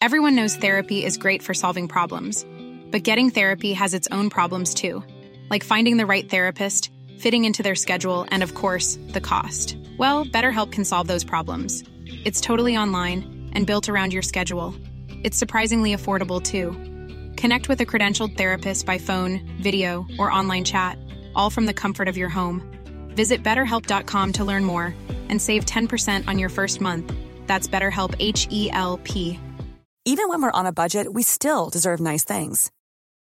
Everyone knows therapy is great for solving problems, but getting therapy has its own problems too, like finding the right therapist, fitting into their schedule, and of course, the cost. Well, BetterHelp can solve those problems. It's totally online and built around your schedule. It's surprisingly affordable too. Connect with a credentialed therapist by phone, video, or online chat, all from the comfort of your home. Visit betterhelp.com to learn more and save 10% on your first month. That's BetterHelp H E L P. Even when we're on a budget, we still deserve nice things.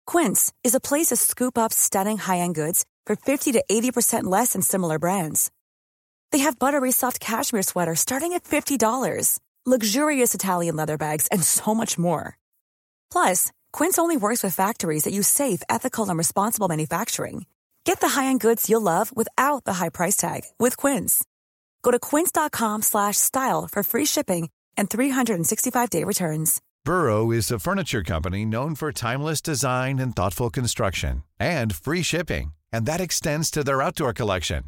Quince is a place to scoop up stunning high-end goods for 50 to 80% less than similar brands. They have buttery soft cashmere sweaters starting at $50, luxurious Italian leather bags, and so much more. Plus, Quince only works with factories that use safe, ethical, and responsible manufacturing. Get the high-end goods you'll love without the high price tag with Quince. Go to quince.com slash style for free shipping and 365-day returns. Burrow is a furniture company known for timeless design and thoughtful construction and free shipping, and that extends to their outdoor collection.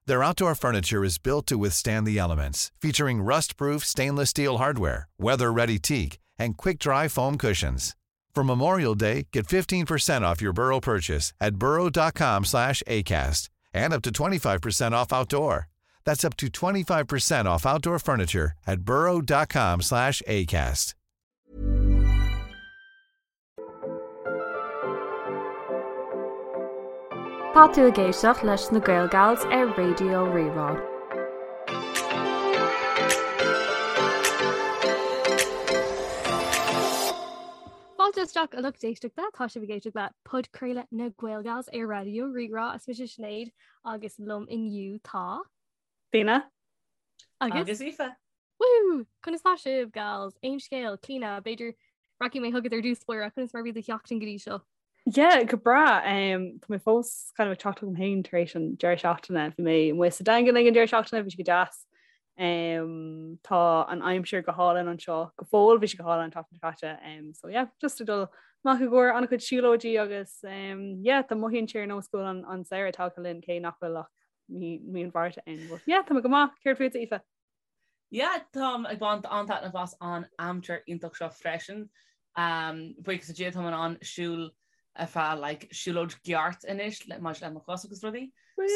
Their outdoor furniture is built to withstand the elements, featuring rust-proof stainless steel hardware, weather-ready teak, and quick-dry foam cushions. For Memorial Day, get 15% off your Burrow purchase at burrow.com slash ACAST and up to 25% off outdoor. That's up to 25% off outdoor furniture at burrow.com slash ACAST. Tá tú ag éisteacht leis na Gaelgals ar Raidió Rí-Rá. Fáilte isteach a lucht éisteachta, tá sibh ag éisteacht le podchraoladh na Gaelgals ar Raidió Rí-Rá. Is mise Sinéad agus liom inniu tá. Clíona. Agus? Agus Aoife. Woo! Conas tá sibh, gals? Aon scéal, Clíona, b'fhéidir rachaidh mé chugat ar dtús báire, conas mar bhí do sheachtain go dtí seo? Yeah, go breá. Um, tá mé fós kind of ag teacht chugam féin tar éis an deireadh seachtaine. Bhí mé amuigh sa Daingean ag an deireadh seachtaine, bhí sé go deas. Um, tá an aimsir go hálainn anseo go fóill, bhí sé go hálainn an tseachtain seo caite. Um, so yeah, just ag dul amach i gcomhair an-chuid siúlóidí agus um, yeah, tá mothaíonn sé ar nós go bhfuil an, an samhradh tagtha linn cé nach bhfuil ach mí, mí an Mhárta ann. But yeah, tá mé go maith, céard fútsa Aoife? Yeah, táim ag baint an-taitneamh as an aimsir iontach seo freisin. Um, buíochas le Dia táim in ann siúl ar feadh like, siúlóid ceart anois le maidir le mo chos agus rudaí.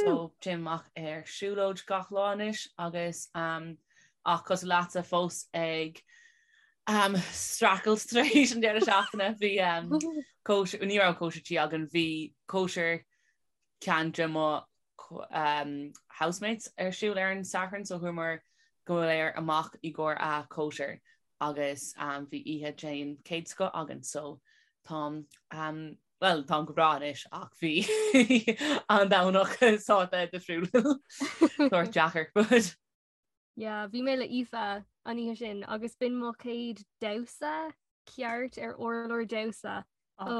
So téim amach ar siúlóid gach lá anois agus um, ach cosúil leatsa fós ag um, streachailt tar éis an deireadh seachtaine bhí um, cóisir, ní raibh cóisir tí againn, bhí cóisir ceann de mo um, housemates ar siúl ar an Satharn so chuamar go léir amach i gcomhair a cóisir agus bhí oíche den chéad scoth againn so táim bhuel táim go breá anois ach bhí an Domhnach sórt difriúil sórt deacair but Yeah, bhí mé le Aoife an oíche sin agus b'in mo chéad damhsa ceart ar urlár damhsa ó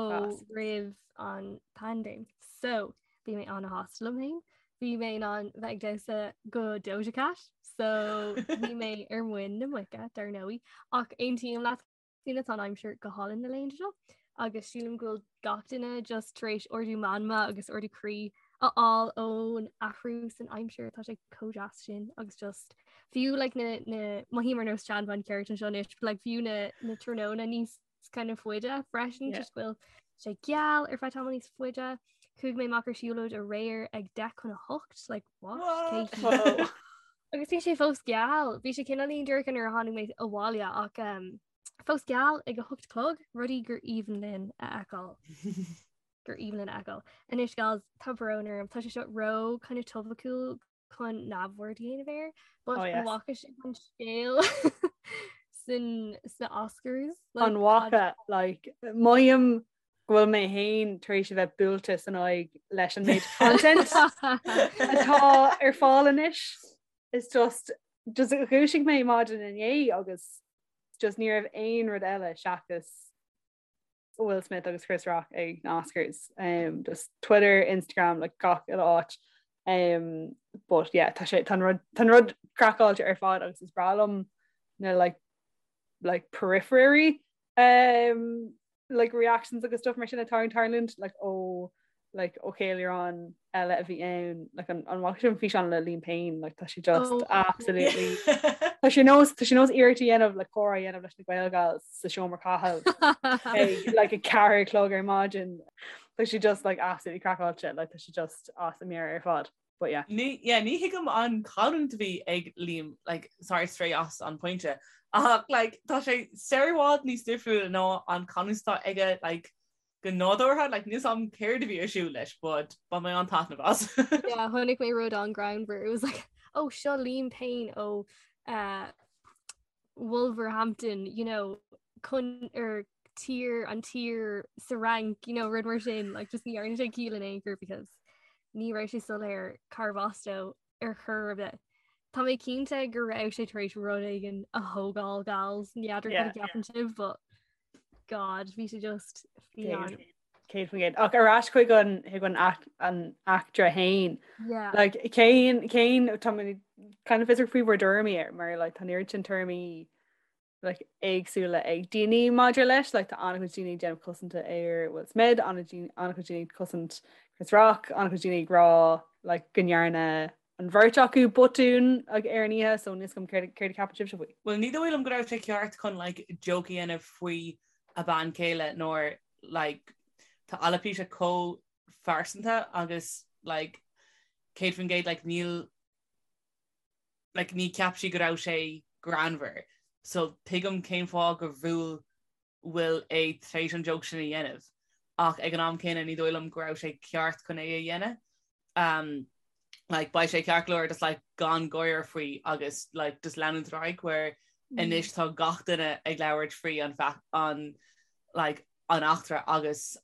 roimh an paindéim. So bhí mé an-shásta liom féin. Bhí mé in ann bheith ag damhsa go Doja Cat, so bhí mé ar muin na muice dar ndóigh. Ach aontaím leat Clíona tá an aimsir go hálainn na laethanta seo agus sílim go bhfuil gach duine just tar éis ardú meanma agus ardú croí a fháil ón athrú san aimsir tá sé chomh deas sin agus just fiú like, na, na mothaím ar nós seanbhean ceart anseo anois, but like, fiú na, na tráthnóna níos kind of faide freisin just go bhfuil sé geal ar feadh tamall níos faide. Chuaigh mé amach ar siúlóid aréir ag 7:50 like what? What? Agus bhí sé fós geal, bhí sé cineáilín dorcha nuair a tháinig mé abhaile ach um, fós geal ag a hocht a chlog, rudaí gur aoibhinn linn a fheiceáil. gur aoibhinn linn a fheiceáil. Anois gals tá brón orm, tá sé seo ró kind of topaiciúil chun neamhaird a dhéanamh air, but oh, yes. bhfaca sibh an scéal san sna Oscars. Like, an bhfaca like, mothaím go bhfuil mé féin tar éis a bheith buailte san aghaidh leis an méid content atá ar fáil anois. It's just just dhúisigh mé maidin inné agus just ní raibh aon rud eile seachas Will Smith agus Chris Rock ag na Oscars um, just Twitter, Instagram, like gach uile áit. Um, but yeah, tá sé tá rud tá rud craiceáilte ar fad agus is breá liom na like like periphery um, like reactions agus stuff mar sin atá ag tarlúint like ó like ó cheiliúrán eile a bhí ann like an an bhfaca sibh an físeán le Liam Payne like tá sé just oh. absolutely Tá sé nós tá sé nós iarracht a dhéanamh le comhrá a dhéanamh leis na Gaelgals sa seomra caithimh ag like 4 a chlog ar maidin Tá sé just like absolutely craiceáilte like tá sé just as a meabhair ar fad. But yeah. Ní yeah, ní thuigim an chanúint a bhí ag Liam like sorry stray as an pointe ach like tá sé sar i bhfad níos difriúla ná an canúint atá aige like go nádúrtha like níl 's a'm céard a bhí ar siúl leis but bhain mé an-taitneamh as. Yeah, chonaic mé rud an-ghreannmhar. It was like, oh, seo Liam Payne ó uh, Wolverhampton, you know, chun ar tír an tír sa Fhrainc, you know, rud mar sin, like just ní dhearna sé ciall in aon chor because ní raibh sé soiléir cárbh as dó ar chor ar bith. Tá mé cinnte go raibh sé tar éis rud éigin a thógáil gals, n'fheadar cad a cheapann sibh, but God, bhí sé just fiáin. 100%. Ach ar ais chuig an chuig an an eachtra fhéin. Yeah. Like cén cén tá mé kind of fiosrach faoi bhur dtuairimí air mar like tá an oiread sin tuairimí like éagsúla ag daoine maidir leis, like tá an-chuid daoine ag déanamh cosanta ar Will Smith, an-chuid daoine ag cosaint Chris Rock, an-chuid daoine ag rá like go ndearna an bheirt acu botún like, ar an oíche, so níl 's agam céard céard a cheapann sibhse faoi. Well ní dóigh liom go raibh sé ceart chun like joke a dhéanamh faoi a bean chéile nuair like tá alopecia chomh phearsanta agus like 100% like níl like ní cheap sí go raibh sé greannmhar so tuigim cén fáth gur bhuail Will é tar éis an joke sin a dhéanamh ach ag an am céanna ní dóigh liom go raibh sé ceart chun é a dhéanamh. Um, like, beidh sé ceart go leor just like gan gáire faoi agus like just leanúint ar aghaidh where mm. anois tá gach duine ag labhairt faoi an an like an eachtra agus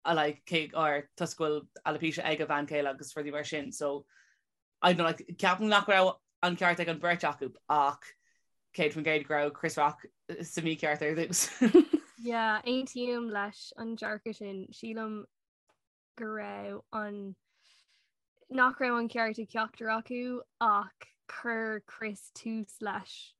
a like cé or toisc go bhfuil alopecia ag a bhean chéile agus rudaí mar sin so I don't know, like, ceapaim nach raibh an ceart ag an beirt acu ach 100% go raibh Chris Rock sa mícheart ar dtús. Yeah, aontaím leis an dearcadh sin. Sílim go raibh an nach raibh an ceart ag ceachtar acu ach chuir Chris tús leis.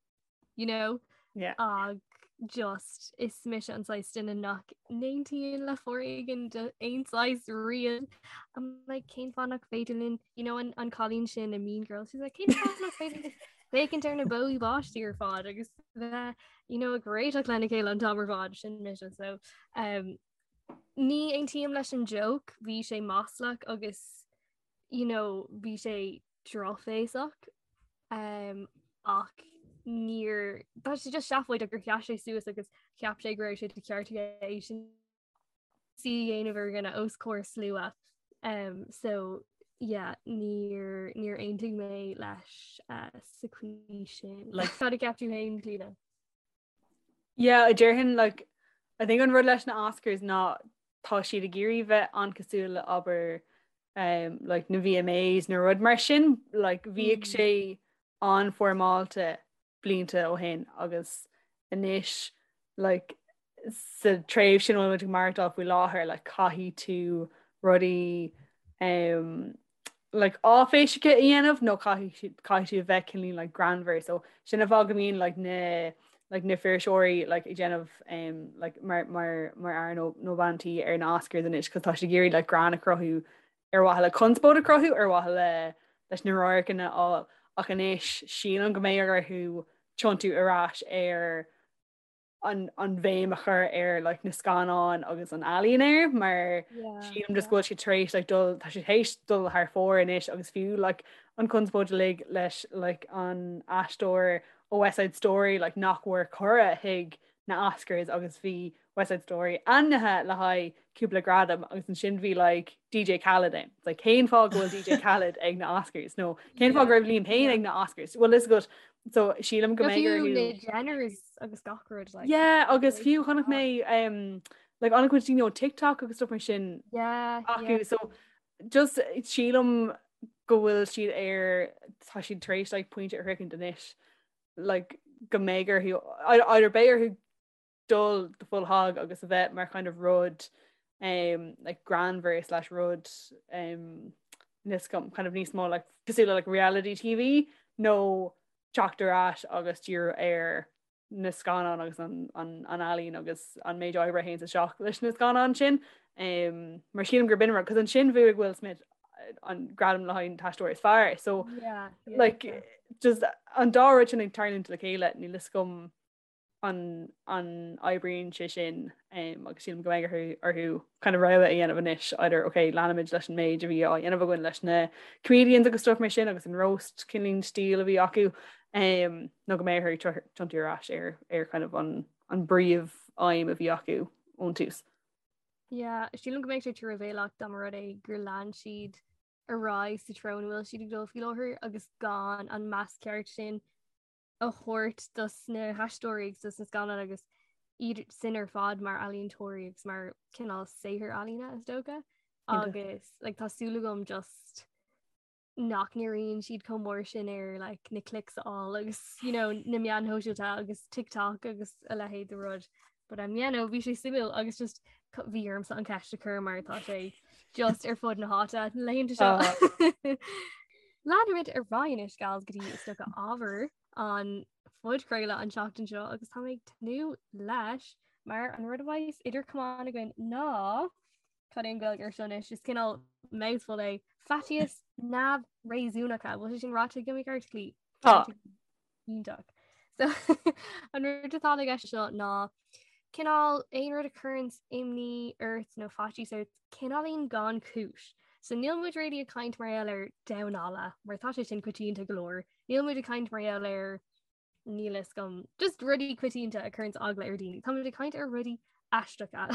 you know? Yeah. Ag just is mise an saghas duine nach n-aontaíonn le foréigean d'aon saghas riamh. I'm like cén fáth nach féidir linn, you know, an, an cailín sin i Mean Girls, she's like cén fáth nach féidir linn féachaint ar na bó báistí ar fad agus bheith, you know, ag réiteach lena chéile an t-am ar fad sin mise. So um, ní aontaím leis an joke, bhí sé maslach agus you know, bhí sé drochbhéasach um, ach níor tá sé just seafóideach gur sheas sé suas agus cheap sé go raibh sé de cheart aige é sin a dhéanamh ar dhuine os comhair slua. Um, so yeah, níor níor aontaigh mé leis uh, sa chaoi sin. Like, cad a cheap tú féin Clíona? Yeah, déarfainn like I think an rud leis na Oscars ná tá siad ag iarraidh bheith an-cosúil le abair um, like na VMAs nó rud mar sin like bhíodh mm. sé an-fhoirmeálta blianta ó shin agus anois like sa tréimhse ina bhfuil muid ag maireachtáil faoi láthair like caithfidh tú rudaí um, like áiféiseacha a dhéanamh nó caithfidh caithfidh tú a bheith cineál like greannmhar so sin an fáth go mbíonn like na like na fuirseoirí like ag déanamh um, like mar mar mar fhear nó nó bean tí ar na Oscars anois cos tá siad ag iarraidh like greann a chruthú ar mhaithe le conspóid a chruthú ar mhaithe le leis na radharcanna a fháil ach anois sílim go mbeidh orthu tiontú ar ais ar an an bhéim a chur ar like na scannáin agus an ealaín air mar sílim just go bhfuil siad tar éis like dul tá siad théis dul thar fóir anois agus fiú like an conspóid uilig leis like an aisteoir ó West Side Story like nach bhfuair cuireadh chuig na Oscars agus bhí West Side Story ainmnithe le haghaidh cúpla gradam agus ansin bhí like DJ Khaled ann. It's like cén fáth go bhfuil DJ Khaled ag na Oscars nó cén fáth go raibh Liam Payne ag na Oscars? Well is good so sílim go mbeidh orthu na Jenners agus gach rud like Yeah agus fiú chonaic mé um, like an-chuid daoine ó TikTok agus stuff mar sin yeah, acu yeah. so just sílim go bhfuil siad ar tá siad tar éis like pointe a shroichint anois like go mbeidh orthu either beidh orthu dul the full hog agus a bheith mar kind of rud um, like greannmhar slash rud um, níos kind of níos mó like cosúil le like reality TV nó teacht ar ais agus díriú ar na scannáin agus an, an, an ealaín agus an méid oibre a théann isteach leis na scannáin sin. Um, mar sílim gur b'in an rud, cos ansin bhuaigh Will Smith an gradam le haghaidh an t-aisteoir is fearr. So yeah, yeah, like yeah. just an dá rud sin ag tarlúint le chéile níl fhios agam an an oibríonn sé sin um, agus sílim go mbeidh orthu orthu kind of rogha a dhéanamh anois either okay leanfaimid leis an méid a bhí á dhéanamh againn leis na comedians agus stuff mar sin agus an roast cineál stíl a bhí acu um, nó go mbeidh orthu tiontú ar ais ar ar kind of an an bpríomh aidhm a bhí acu ón tús. Yeah, sílim go mbeidh sé truamhéalach dá mba rud é gur lean siad ar aghaidh sa treo ina bhfuil siad ag dul faoi láthair agus gan an meas ceart sin a thabhairt dos na haisteoirí agus dos na scannáin agus iad sin ar fad mar ealaíontóirí agus mar cineál saothar ealaíne is dócha agus like, tá súil agam just nach ndíríonn siad chomh mór sin ar like, na clicks a fháil agus you know, na meáin shóisialta agus TikTok agus a leithéid de rud. But um, yeah, no, bhí sé suimiúil agus just bhí ormsa an ceist a chur mar tá sé just ar fud na háite na laethanta seo. Uh. Leanfaimid ar aghaidh anois gals go dtí is dócha ábhar an phodchraoladh an tseachtain seo agus tá mé ag tnúth leis mar an rud a bheas idir camáin againn ná Cad é an Ghaeilge ar seo anois is cineál mouthful é faitíos neamhréasúnacha bhfuil sé sin ráite agam i gceart Clí? Tá. Iontach. So an rud atá i gceist seo ná cineál aon rud a chuireann imní ort nó faitíos ort cineáilín gan chúis. So níl muid really ag caint mar gheall ar damhán alla mar tá sé sin coitianta go leor. Níl muid ag caint mar gheall ar níl fhios agam just rudaí coitianta a chuireann eagla ar daoine. Tá muid ag caint ar rudaí aisteacha.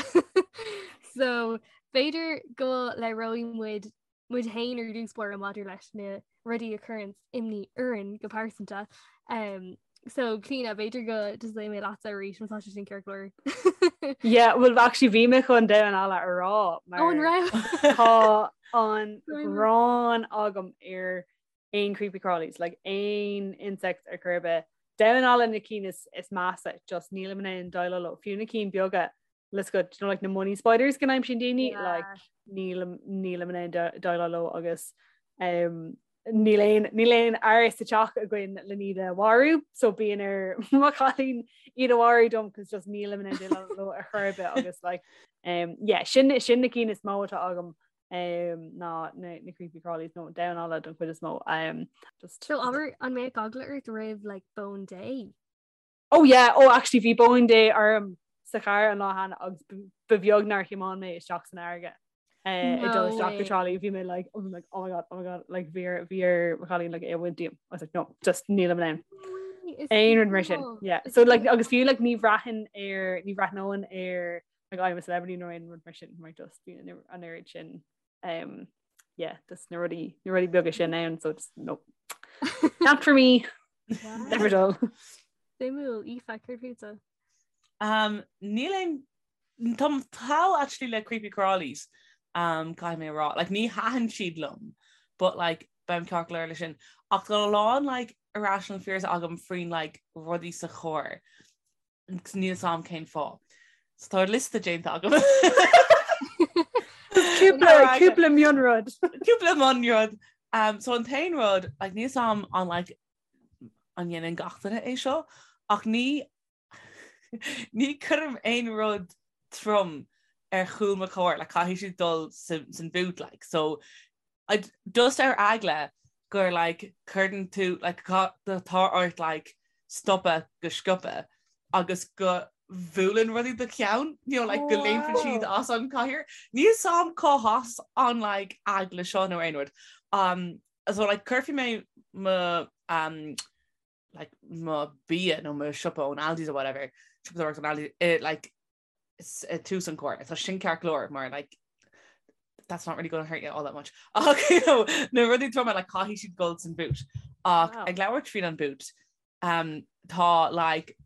So b'fhéidir go labhróidh muid muid féin ar dtús báire maidir leis na rudaí a chuireann imní orainn go pearsanta. Um, so Clíona b'fhéidir go dtosóidh mé leatsa arís má tá sé sin ceart go leor. Yeah, well actually bhí mé chun damhán alla a rá mar Ó, an raibh? tá an ghráin agam ar aon creepy crawlies, like aon insects ar chor ar bith. Damhán alla na cinn is, is measa, just nílim in ann déileáil leo. Fiú na cinn beaga, let's go, you know, like na money spiders go n-aimsíonn daoine, Yeah. like nílim, nílim in ann de- déileáil leo agus um, níl aon, níl aon fhear sa teach againn le iad a mharú, so bíonn ar mo chailín iad a mharú dom cos just nílim in ann déileáil leo ar chor ar bith agus like, um, yeah, sin, sin na cinn is mó atá agam um, ná na, na creepy crawlies nó damhán alla don chuid is mó. Um, just, So abair an mbeadh eagla ort roimh like bóin Dé? Oh yeah, oh actually bhí bóin Dé orm sa charr an lá cheana agus ba bheag nár thiomáin mé isteach san fharraige. Uh, ag dul isteach go Trá Lí bhí mé like oh, like oh my god oh my god like bhí ar bhí ar mo chailín like é a bhaint díom I was like no just nílim in ann aon rud mar sin yeah so like agus fiú like ní bhraithfinn ar ní bhreathnóinn ar like I'm a celebrity nó aon rud mar sin mar just bíonn an oiread sin um, yeah, just na rudaí na rudaí beaga sin ann so just no not for me Wow. never dull Suimiúil Aoife céard fútsa. Um, níl aon Táim thall actually le creepy crawlies um, caithfidh mé a rá. Like, ní thaitin siad liom, but like, beim ceart go leor le sin. Ach tá a lán like, irrational fears agam faoin like, rudaí sa charr. Agus níl 'fhios a'm cén fáth. So tá liosta déanta agam. Cúpla cúpla mionrud. Cúpla mionrud. Um, so an t-aon rud, like, níl 'fhios a'm an like, an ndéanann gach duine é seo, ach ní ní chuirim aon rud trom ar chúl mo chairr, like, caithfidh siad dul san boot, like, so I just ar eagla gur like cuireann tú like tá ort like stopadh go sciobtha agus go bhuaileann rudaí do cheann, you know, like go léimfeann siad as an cathaoir. Níl 'fhios a'm cá has an like eagla seo nó aon rud. Um, so like cuirfidh mé mo um, like mo bia nó mo siopa ón Aldi's or whatever, siopadóireacht ón Aldi's, eh, like ag tús an carr. Tá sin ceart go leor mar like that's not really going to hurt you all that much. Ach you know, na rudaí troma like caithfidh siad dul san boot. Ach Wow. ag labhairt faoin an boot, um, tá like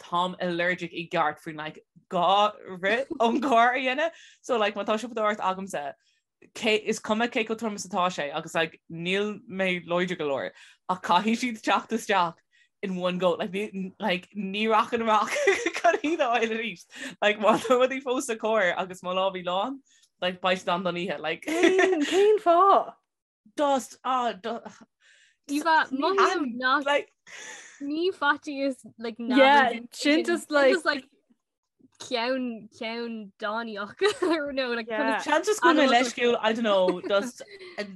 táim allergic i gceart faoin like gá rith ón gcarr a dhéanamh. So like má tá siopadóireacht agamsa cé, is cuma cé chomh trom is atá sé agus like níl mé láidir go leor ach caithfidh siad teacht isteach in one go like ní, like ní rachainn amach chun iad a fháil arís like má tá rudaí fós sa charr agus mo lámhaí lán like beidh siad ann don oíche like Cén cén fáth? Just ah do, Aoife, mothaím nach like ní faitíos like Yeah, sin just like just like. Ceann ceann dánaíoch no like Yeah. Seans just go bhfuil mé leisciúil, I don't know, just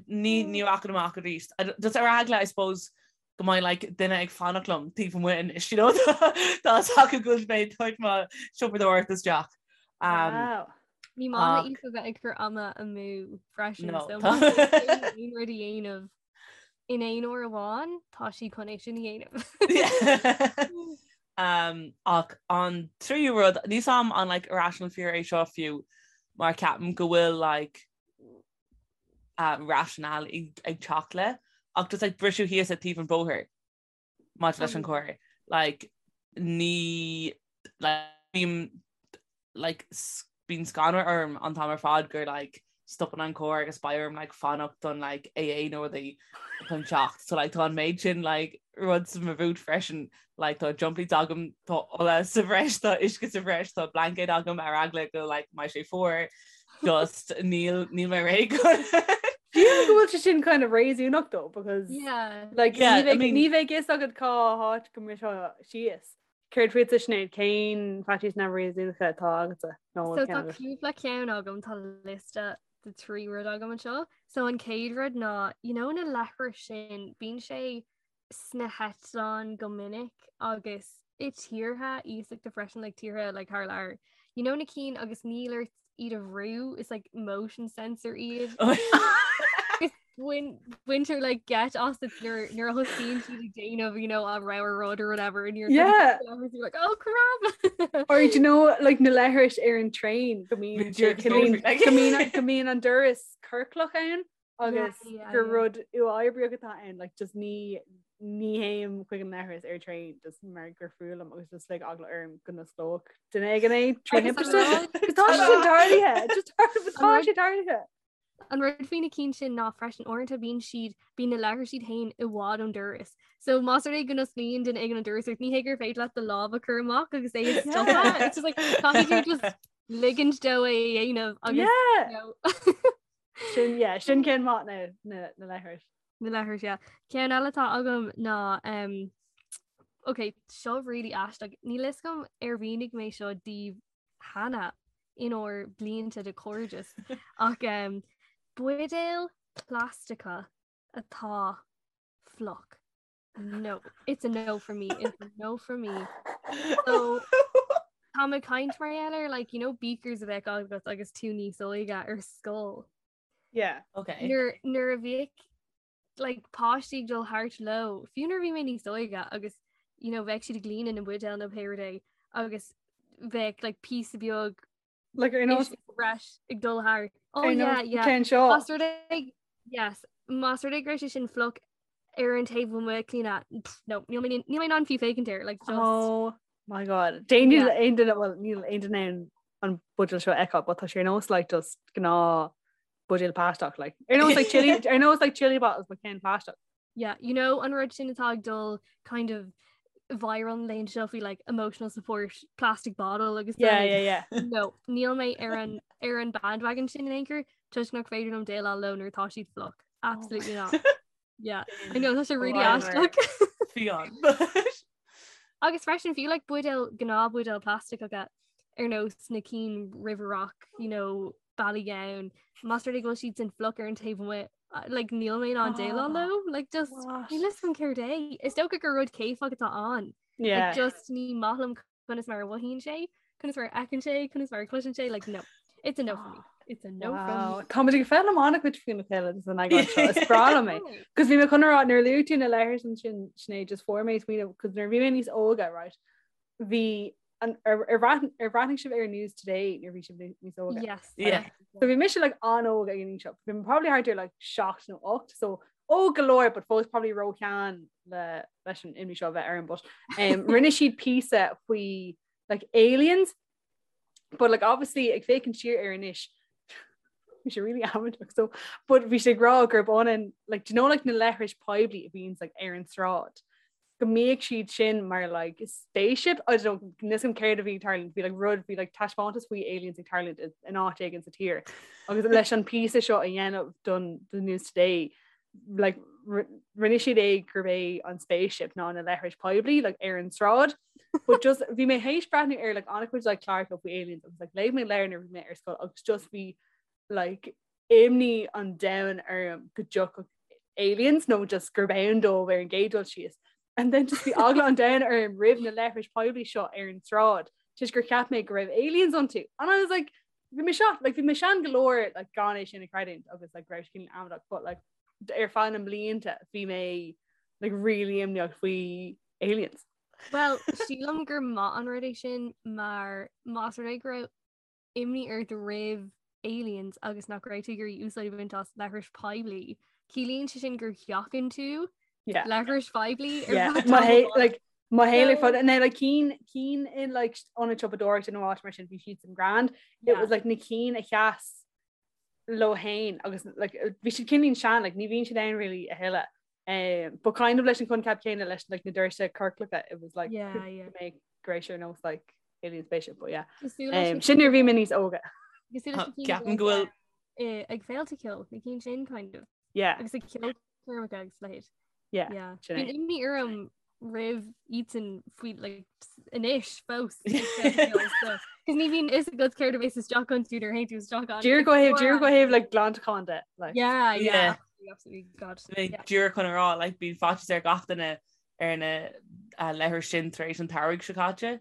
ní ní rachainn amach arís. Just ar eagla, I suppose, go mbeidh like duine ag fanacht liom taobh amuigh anois, you know, tá a fhios acu go bhfuil mé ag tabhairt mo siopadóireacht isteach. Um, Wow. Ní maith Ach- le Aoife bheith ag cur ama amú freisin No, so tá- má tá aon rud a dhéanamh in aon uair amháin tá sí chun é sin a dhéanamh. Um, ach an tríú rud, níl a fhios agam an like, irrational fear é seo fiú mar ceapaim go bhfuil like, uh, rationale ag, ag teacht le ach just like, briseadh síos at taobh an bhóthair maidir leis an carr. Like, ní like, bím like bíonn scanradh orm an t-am ar fad gur like stopann an carr agus beidh orm like fanacht don like AA nó rudaí chun teacht. So like tá an méid sin like rud sa mo bhút freisin like tá jump leads agam tá ola sa bhreis tá uisce sa bhreis tá blanket agam ar eagla go like mbeidh sé fuar just níl níl mé réidh Sílim go bhfuil sé sin kind of réasúnach though because Yeah. like Yeah, ní I bheidh mean- ní bheidh fhios agat cá háit go mbrisfeá síos. Céard fútsa Sinéad, cén faitíos neamhréasúnacha atá agatsa? Nó So ceann tá agat? cúpla ceann agam tá liosta de trí rud agam anseo. So an chéad rud ná you know na leithris sin bíonn sé sna heitleáin go minic agus i tíortha iasachta freisin like tíortha like thar lear. You know na cinn agus níl ort iad a bhrú is like motion sensor iad. Bhain baintear like geit asat nuair nuair a thosaíonn siad ag déanamh you know a rogha rud or whatever and you're Yeah. you're like oh crap Or do you know like na leithris ar an train go mbíonn Bíonn siad go mbíonn- like- go mbíonn go mbíonn an doras ciorclach ann agus yeah, gur yeah. rud uathoibríoch atá ann like just ní ní théim chuig an leithreas ar train just mar gur fuath liom agus just like eagla orm go n-osclódh duine éigin é trí Agus an thimpiste. rud- Agus Tá sé sin tarlaithe just tá An rud- sé tarlaithe. An rud faoi na cinn sin ná freisin uaireanta bíonn siad bíonn na leithris iad féin i bhfad ón doras. So más rud é go n-osclaíonn duine éigin an doras ort ní hé gur féidir leat do lámh a chur amach agus é a stopadh. It's just like caithfidh tú just ligint dó é a dhéanamh agus Yeah. you know, Sin yeah, sin ceann maith na na na leithris. na leithris yeah. Ceann eile atá agam ná um, ok, seo really aisteach. Níl fhios agam ar mhínigh mé seo daoibh cheana inár blianta de chairdeas ach um, buidéal plaisteacha atá fliuch. No, it's a no for me. It's a no for me. So tá mé ag caint mar gheall ar like you know beakers a bheadh agat agus tú níos óige ar scoil. Yeah. Okay. Nuair nuair a bhíodh like páistí ag dul thart leo fiú nuair a bhí mé níos óige agus you know bheadh siad ag líonadh na mbuidéal nó pé rud é agus bheadh like píosa beag Like ar nós breis ag dul thart. Oh ar yeah, nós yeah. ceann seo. Más rud é yes, más rud é go raibh sé sin fliuch ar an taobh amuigh Clíona pff, no, níl mé níl mé in ann fiú féachaint air like just Oh my god. Déan Yeah. aon duine well níl aon duine in ann an buidéal seo a fheiceáil, but tá sé ar nós like just gnáth buidéal plaisteach like ar nós like chili ar nós like chili bottles but ceann plaisteach. Yeah, you know an rud sin atá ag dul kind of viral an laethanta seo faoi like emotional support plastic bottle agus Yeah, like, yeah, yeah. No, níl mé ar an ar an bandwagon sin in aon chor toisc nach féidir liom déileáil leo nuair atá siad fliuch. Absolutely not. Yeah, I know tá sé really Whatever. aisteach. Fiáin. Agus freisin fiú like buidéal gnáthbhuidéal plaisteacha ar nós na cinn River Rock, you know, Ballygowan, más rud é go bhfuil siad sin fliuch ar an taobh amuigh, uh, like níl mé in ann déileáil Oh, leo, like just what? níl fhios agam céard é. Is dócha gur rud céifeach atá ann. Yeah. Like just ní maith liom conas mar a mhothaíonn sé, conas mar a fheiceann sé, conas mar a chloiseann sé, like no. It's a no for me. It's a no Wow. from me. Tá muid ag foghlaim an-chuid faoina chéile san eagrán seo. Is breá liom é. Cos bhí mé chun a rá nuair a luaigh tú na leithris ansin Sinéad just fuair mé smaoineamh cos nuair a bhí mé níos óige right bhí an ar ar bhreath- ar bhreathnaigh sibh ar News Today nuair a bhí sibh níos óige. Yes. Yeah. So bhí mise like an-óg ag an aois seo. Bhí mé probably thart ar like 7 nó 8 so óg go leor but fós probably róshean le leis an imní seo a bheith orm but um, rinne siad píosa faoi like aliens but like obviously ag féachaint siar air anois bhí sé really amaideach so but bhí sé ag rá gurb ionann like do you know like na leithris poiblí a bhíonns like ar an tsráid go mbíodh siad sin mar like spaceship I don't know níl fhios agam céard a bhí ag tarlúint bhí like rud bhí like taispeántas faoi aliens ag tarlúint in áit éigin sa tír agus leis an píosa seo a dhéanamh don the News Today like rinne siad é gurb é an spaceship ná na leithris poiblí like ar an tsráid. But just bhí mé théis breathnú ar like an-chuid like cláracha faoi aliens agus like léigh mé leabhar nuair bhí mé ar scoil agus just bhí like imní an domhain orm go dtiocfadh aliens nó just gurb ann dóibh ar an gcéad dul síos. And then just bhí eagla an domhain orm roimh na leithris poiblí seo ar an tsráid toisc gur cheap mé go raibh aliens iontu. And I was like bhí mé seo like bhí mé sean go leor like gan é sin a chreidiúint agus like raibh sé cineál amaideach but like ar feadh na mblianta bhí mé like really imníoch faoi aliens. Well, sílim gur maith an rud é sin mar más rud é go raibh imní ort roimh aliens agus nach raibh tú ag iarraidh úsáid a bhaint as leithris poiblí. Ciallaíonn sé sin gur sheachain tú Yeah. leithris phoiblí ar Yeah. feadh Mo tamaill. hé- like, mo shaol ar So- fad na like cinn cinn in like ionad siopadóireachta nó áit mar sin bhí siad san grand. It Yeah. was like na cinn a sheas leo féin agus like bhí siad cineál sean like ní bhíonn siad ann really a thuilleadh. Um, but kind of leis an coincheap céanna leis like na doirse ciorclacha it was like Yeah, could yeah. make go raibh sé ar nós like alien spaceship but yeah. Cosúil leis Um, na sin nuair a bhí mé níos óga. Cosúil leis na cinn Ceapaim go bhfuil eh, ag féilte ceoil na cinn sin kind of. Yeah. Agus ag ceolchoirmeacha agus leithéid. Yeah, Yeah. sin é. Bíonn imní orm roimh iadsan faoi like, anois fós ag féilte ceoil, so Cos ní bhíonn fhios agat céard a bheas isteach iontu nuair a théann tú isteach ann. Díreach ó thaobh díreach ó thaobh like glantachán de like. Yeah, yeah, Yeah. absolutely, absolutely, God. Mé Yeah. díreach chun a rá like bíonn faitíos ar gach duine ar na uh, leithris sin tar éis an tsamhraidh seo caite.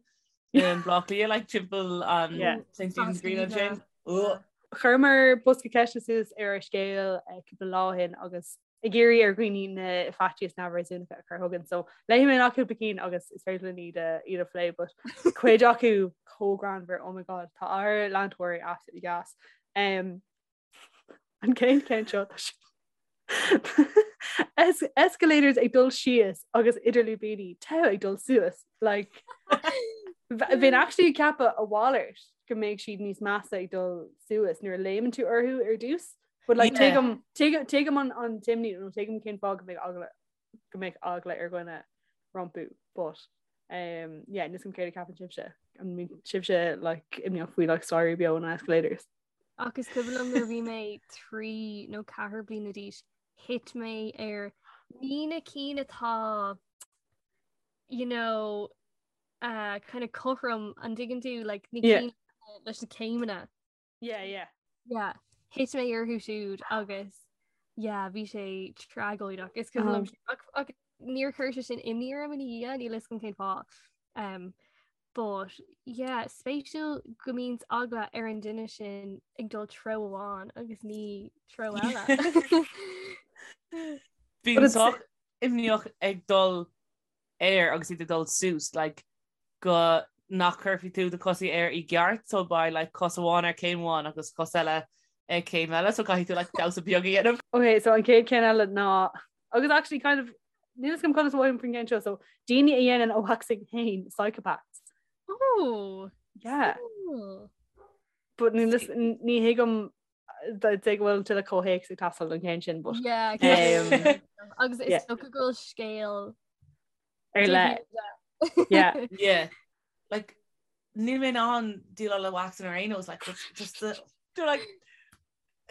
In Baile Átha Cliath like timpeall an Yeah. St. Stephen's Green ansin. Yeah. Chuireamar bosca ceiste suas ar ár scéal eh, cúpla lá ó shin agus ag iarraidh ar dhaoine na faitíos neamhréasúnacha a chur chugainn. So léifidh mé amach cúpla cinn agus is féidir linn iad a iad a phlé, but cuid acu chomh greannmhar, oh my god, tá ár leantóirí absolutely gas. Um, an chéad cheann seo tá sé- Es escalators ag dul síos agus idir lúibíní togha ag dul suas like bheinn actually ag ceapadh a mhalairt go mbeidh siad níos measa ag dul suas nuair a léimeann tú orthu ar dtús. But like Yeah. tuigim tuigim tuigim an an t-imní nó tuigim cén fáth go mbeadh eagla go mbeadh eagla ar dhuine rompu but um yeah níl a fhios agam céard a cheapann sibhse an mbíonn sibhse like imníoch faoi like staighrí beo nó escalators. Ach is cuimhin liom nuair a bhí mé 3 nó 4 bliana d'aois, thit mé ar ní na cinn atá you know uh, kind of cothrom an dtuigeann tú like na Yeah. cinn leis na céimeanna. Yeah, yeah. Yeah. Thit mé orthu siúd agus yeah, bhí sé tragóideach. Is cuimhin liom Um. sin- ach- ach níor chuir sé sin imní orm ina dhiaidh, níl fhios agam cén fáth. Um, but yeah, spéisiúil go mbíonn eagla ar an duine sin ag dul treo amháin agus ní treo eile. Bím But it's- sách imníoch ag dul air agus iad ag dul suas like go nach cuirfidh tú do chosaí air i gceart so beidh like cos amháin ar céim amháin agus cos eile ag céim eile so caithfidh tú like damhsa beag a dhéanamh. Ok, so an chéad ceann eile ná agus actually kind of níl fhios agam conas a mhothaím faoin gceann seo so daoine a dhéanann a waxing féin psychopaths. Oh, Yeah. cool. But ní lis- ní thuigim dtig go bhfuil tuilleadh comhthéacs ag teastáil don cheann sin but Yeah, Um, agus is yeah. dócha go bhfuil scéal ar leith. Yeah. Yeah. Like níl mé in ann déileáil le waxing ar aon nós like just just the do like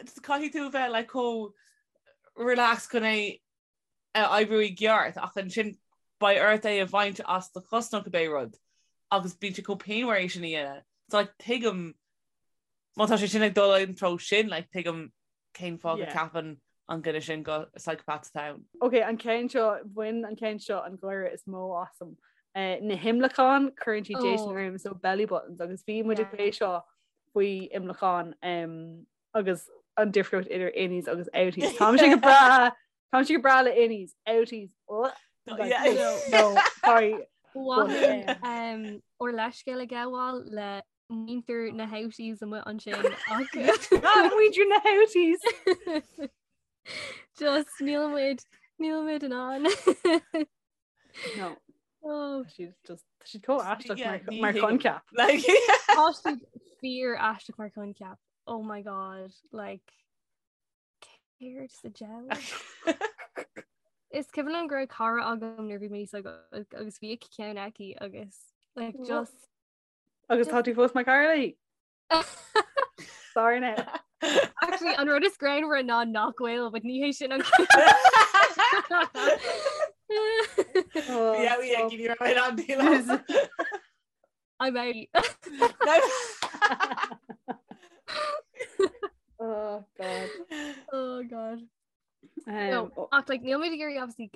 just caithfidh tú bheith like chomh relaxed chun é a oibriú i gceart ach ansin beidh ort é a bhaint as do chos nó cibé rud agus bíonn sé chomh pianmhar é sin a dhéanamh. So like tuigim má tá sé sin ag dul an treo sin like tuigim cén fáth go Yeah. ceapann an duine sin go psychopath atá ann. Ok, an ceann seo, bhain an ceann seo an gáire is mó asam. Eh, na himleacáin, cuireann siad déistin Oh. orm, so belly buttons, agus bhí muid ag Yeah. plé seo faoi imleacáin em, agus an difríocht idir innies agus outies. Táimse go breá Táimse go breá le innies, outies. Oh, like, Yeah. no, no, sorry. Bhí um, ár leithscéal a ghabháil le muintir na houties amuigh ansin ach Ah, muintir na houties. just níl muid níl muid in ann. No, Oh, she's just she's chomh aisteach Yeah, mar ní mar thuigim. choincheap. Like Tá siad fíor aisteach mar choincheap. Oh my god, like céard sa diabhal? Is cuimhin liom go raibh cara agam nuair bhí mé níos óige agus bhí ceann aici agus like What? just Agus tá tú fós mar chara léi? Sorry now. Actually an rud is greannmhaire ná nach bhfuil, but ní hé sin an. Yeah, we ag ní raibh an díle. I'm out. Oh God. Oh God. Um, no, ach like níl muid ag iarraidh obviously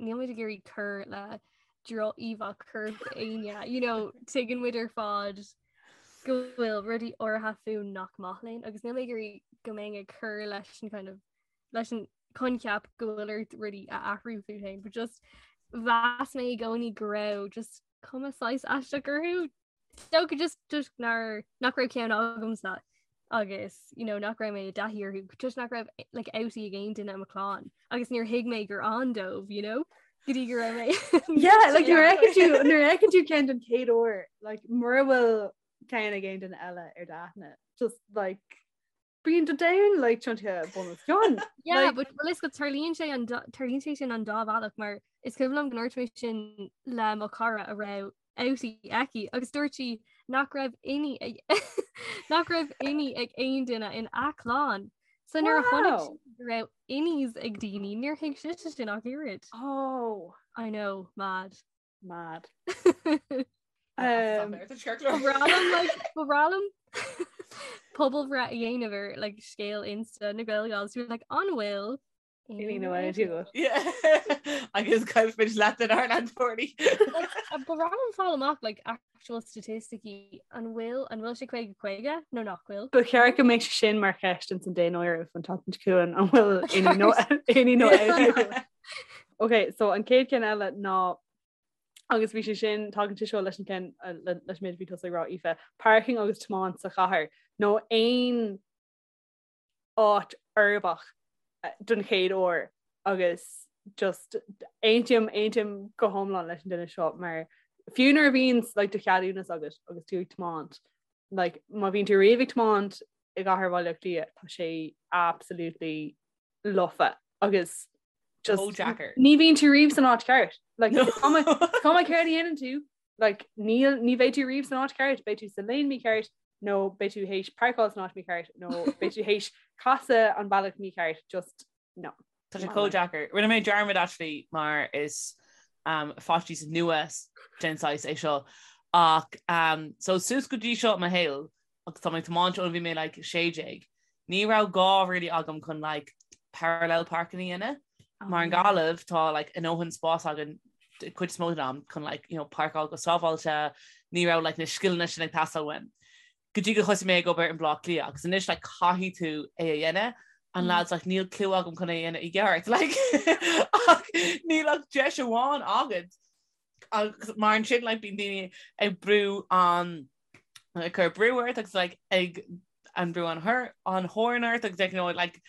níl muid ag iarraidh cur le droch-íomhá choirp éinne you know tuigeann muid ar fad go bhfuil rudaí áirithe fúinn nach maith linn agus níl mé ag iarraidh go mbeinn ag cur leis an kind of leis an coincheap go bhfuil ort rudaí a athrú fút féin but just mheas mé i gcónaí go raibh just cuma saghas aisteach orthu Dócha just toisc nár nach raibh ceann agamsa agus you know, nach raibh mé i dtaithí orthu toisc nach raibh like, outie ag aon duine i mo chlann agus níor thuig mé gur ann dóibh you know, go dtí go raibh mé Yeah, like nuair a fheiceann tú nuair a fheiceann tú ceann den chéad uair like mura bhfuil ceann ag aon duine eile ar d'aithne just like Bíonn do domhan like tiontaithe bun os cionn. Yeah, like, but well, is go tarlaíonn sé an tarlaíonn sé sin an dá bhealach mar is cuimhin liom go ndúirt mé sin le mo chara a raibh outie aici agus dúirt sí nach raibh innie ag nach raibh innie ag aon duine in a clann. So nuair a chonaic sí go raibh innies ag daoine níor thuig sise sin ach oiread. Oh. I know, mad. Mad. Ba bhreá liom pobalbhreith a dhéanamh ar like, scéal Insta na GaelGals you're like an bhfuil Innie nó outie agat. Agus caillfimid leath den ár leantóirí. Ba bhreá liom fáil amach like, actual statisticí an bhfuil an bhfuil sé 50 50 nó nach bhfuil. Ba cheart go mbeadh sé sin mar cheist ins an daonáireamh an tseachtain seo chugainn an bhfuil innie nó innie nó outie agat. Ok, so an chéad cheann eile ná agus bhí sé sin tagann sé seo leis an ceann leis an méid a bhí tusa ag rá Aoife, parking agus tiomáint sa chathair nó aon áit uirbeach don chéad uair agus just aontaím aontaím go hiomlán leis an duine seo mar fiú nuair a bhíonn like, do cheadúnas agat agus tú ag tiomáint like, má bhíonn tú riamh ag tiomáint i gcathair Bhaile Átha Cliath tá sé absolutely lofa agus just Chomh deacair. ní bhíonn tú riamh san áit ceart. Like, is cuma is cuma céard a dhéanann tú, like, níl ní bheidh tú riamh san áit ceart, beidh tú sa lane mícheart nó beidh tú théis páirceáil san áit mícheart nó beidh tú théis casadh an bealach mícheart, just no. Tá sé chomh deacair. Rinne mé dearmad actually mar is um, faitíos nua den saghas é seo ach um, so suas go dtí seo i mo shaol agus tá mé ag tiomáint ó bhí mé like 16. Ní raibh gá really agam chun like parallel parking a dhéanamh. Mar i nGaillimh tá like a ndóthain spás againn cuid is mó den am chun like you know páirceáil go sábháilte, ní raibh like na scileanna sin ag teastáil uaim. Go dtí go thosaigh mé ag obair in Baile Átha Cliath agus anois like caithfidh tú é a dhéanamh and lads like níl clue agam chun é a dhéanamh i gceart like ach níl ach deis amháin agat agus mar ansin like bíonn daoine ag brú an ag cur brú ort agus like ag an brú an thor an horn ort agus like, you know, like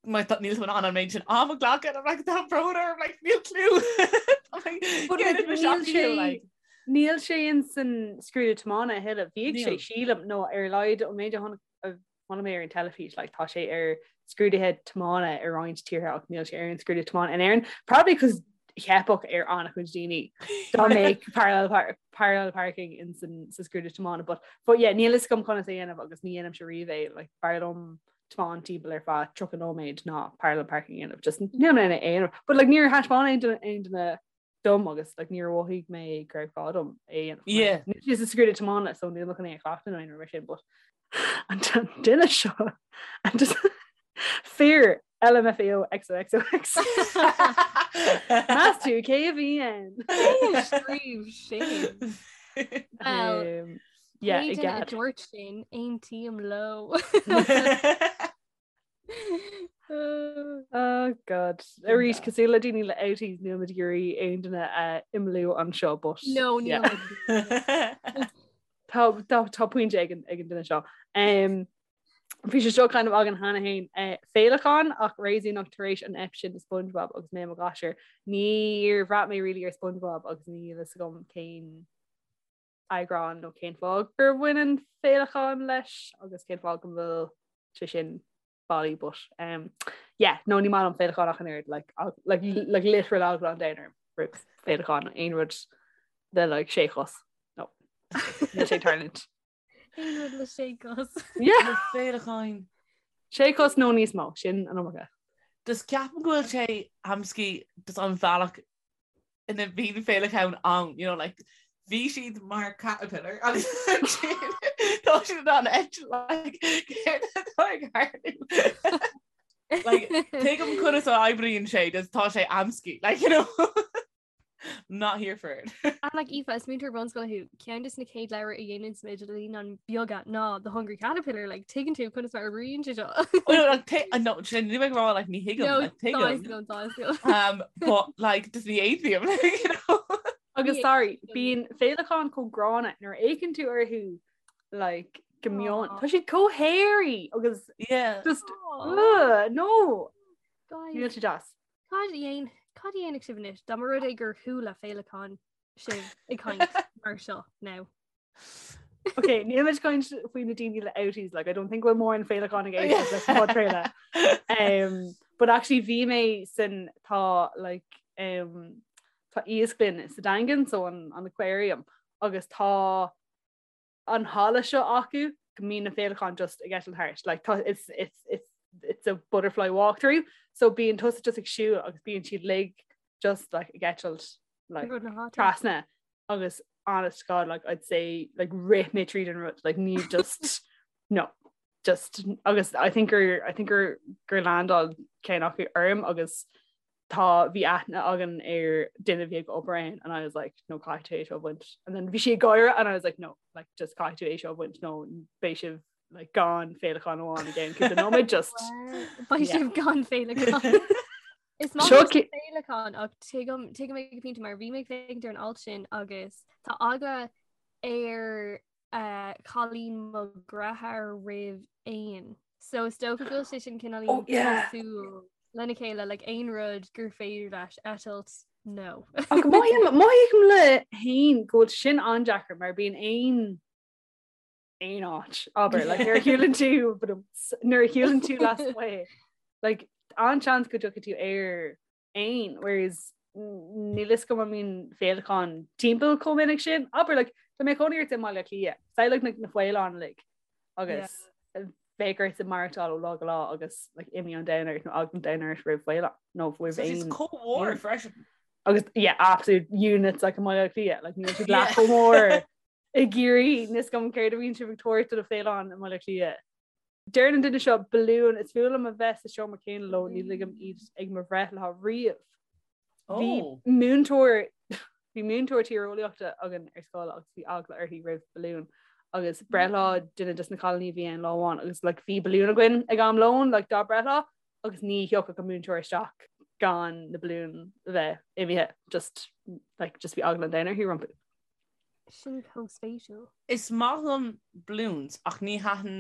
mar tá níl tú in ann an méid sin am a ghlacadh I'm like tá brón orm like níl clue I'm like, But, get like, it, níl Michelle, sé- like Níl sé in san scrúdú tiomána a thuilleadh. Bhíodh sé Níl. sílim nó ar a laghad an méid a chonaic a chonaic mé ar an teilifís, like, tá sé ar scrúduithe tiomána i roinnt tíortha ach níl sé ar an scrúdú tiomána in Éirinn. Probably cos theipfeadh ar an-chuid daoine dá mbeadh parallel, par parallel parking in san, sa scrúdú tiomána. But, but yeah, níl fhios agam conas é a dhéanamh agus ní dhéanaimse riamh é, like, b'fhearr liom tiomáint timpeall ar feadh 30 nóiméad ná parallel parking a dhéanamh. Just níl mé in ann é a dhéanamh. But like, níor thaispeáin aon duine aon duine dom agus like, níor mhothaigh mé go raibh gá dom é a dhéanamh. Yeah. Níl sé sa scrúdú tiomána so níl mé chun é a chleachtadh nó aon rud mar sin, but an duine seo and just fear LMFAO XOXOX. Meas tú cé a bhí ann? Scríobh sin. Well, Um, yeah, Pé i duine a gcead. dúirt sin aontaím leo. Oh God. Arís cosúil le daoine le outies níl muid ag iarraidh aon duine a imeallú anseo but No, níl yeah. muid. Tá tá tá pointe ag an ag an duine seo. Um, Bhí sé seo kind of againn cheana féin eh, féileacáin ach réasúnach tar éis an ep sin de SpongeBob agus mé i mo ghasúr. Níor bhraith mé really ar SpongeBob agus níl fhios agam cén eagrán nó cén fáth gur bhain an féileacán leis agus cén fáth go bhfuil sé sin bailí but um, yeah, no ní maith liom féileacáin ach an oiread like, like, like literal eagla an domhain orm roimh féileacáin aon rud le like sé chos no níl sé ag tarlúint. Aon rud le sé cos. Yeah. Le féileacáin. Sé chos nó níos mó sin an iomarca. Just ceapaim go bhfuil sé amscaí just an bhealach. ina bhíonn féileacáin ann, you know, like, bhí siad mar caterpillar agus ansin tá siad in ann eitilt, like, céard atá ag tarlú? Like, tuigim conas a oibríonn sé, just tá sé amscaí, like, you know. Not here for it. And like Aoife, is múinteoir bunscoile thú, ceann de na chéad leabhair a dhéanann muid le naíonáin bheaga ná The Hungry Caterpillar, like tuigeann tú conas mar a oibríonn sé seo. Oh, no, like, t- uh, no, sin ní bheidh rá like ní thuigim, No, like, tuigim. tá a fhios agam, tá a fhios agam. Um, but like just ní aontaím, like, you know. Agus Ní sorry, aontaím. bíonn féileacáin chomh gránna nuair a fhéachann tú orthu like go mion. Aw. Tá siad chomh hairy agus Yeah. just Aw, ugh, no, guys. níl sé deas. Cad a dhéan cad a dhéanfadh sibh anois dá mba rud é gur chuala féileacán sibh ag caint mar seo now? Ok, níl muid caint faoi na daoine le outies, like, I don't think bhfuil mórán féileacán ag éisteacht leis an podchraoladh. Um, but actually bhí mé san tá like, um, tá iasclann sa Daingean, so an, an aquarium, agus tá an halla seo acu go mbíonn na féileacáin just ag eitilt thart. Like, tá, it's, it's, it's, it's a butterfly walkthrough, so bíonn tusa just ag siúl agus bíonn siad uilig just like ag eitilt like, Rud na háite. trasna agus honest to God like I'd say like rith mé tríd an rud like ní just no just agus I think gur I think gur gur landáil ceann acu orm agus tá bhí aithne againn ar duine a bhí ag obair ann and I was like no caithfidh tú é seo a bhaint and then bhí sí ag gáire and I was like no like just caithfidh tú é seo a bhaint nó beidh sibh like gan féileacán amháin again cúpla nóiméad just Beidh Yeah. sibh gan féileacán. Is maith Seo liom ci- féileacán ach tuigim tuigim ag an bpointe mar bhí mé ag féachaint ar an alt sin agus tá eagla ar uh, cailín mo dheartháir roimh éin. So is dócha go bhfuil sé sin cineál Oh, yeah. cosúil lena chéile like aon rud gur féidir leis eitilt no. Ach mothaím mothaím le héin go bhfuil sin an-deacair mar bíonn aon aon áit abair like nuair a shiúlann tú but nuair a shiúlann tú lasmuigh like an-seans go dtiocfaidh tú ar éan whereas níl fhios agam an mbíonn féileacáin timpeall chomh minic sin abair like tá mé i mo chónaí i mBaile Átha Cliath samhlaigh na na faoileáin uilig agus bheadh ort maireachtáil ó lá go lá agus like imní an domhain ort nó eagla an domhain ort roimh faoileán nó roimh So éin chomh mór freisin. agus yeah absolute units like i mBaile Átha Cliath like níl siad leath chomh mór i gCiarraí níl fhios agam céard a bhíonn sibh ag tabhairt do na féileacáin i mBaile Átha Cliath. Deir an duine seo balún is fuath liom a bheith sa seomra céanna leo ní ligim iad ag mo bhreithlá riamh. Bhí Oh. múinteoir bhí múinteoir tíreolaíochta againn ar scoil agus bhí eagla uirthi roimh balún agus breithlá duine des na cailíní a bhí ann lá amháin agus like, bhí balún againn ag am lóin like, dá breithlá agus ní thiocfadh an múinteoir isteach gan na balúin a bheith imithe just like, just bhí eagla an domhain uirthi rompu. Sin chomh spéisiúil. Is maith liom balloons ach ní thaitin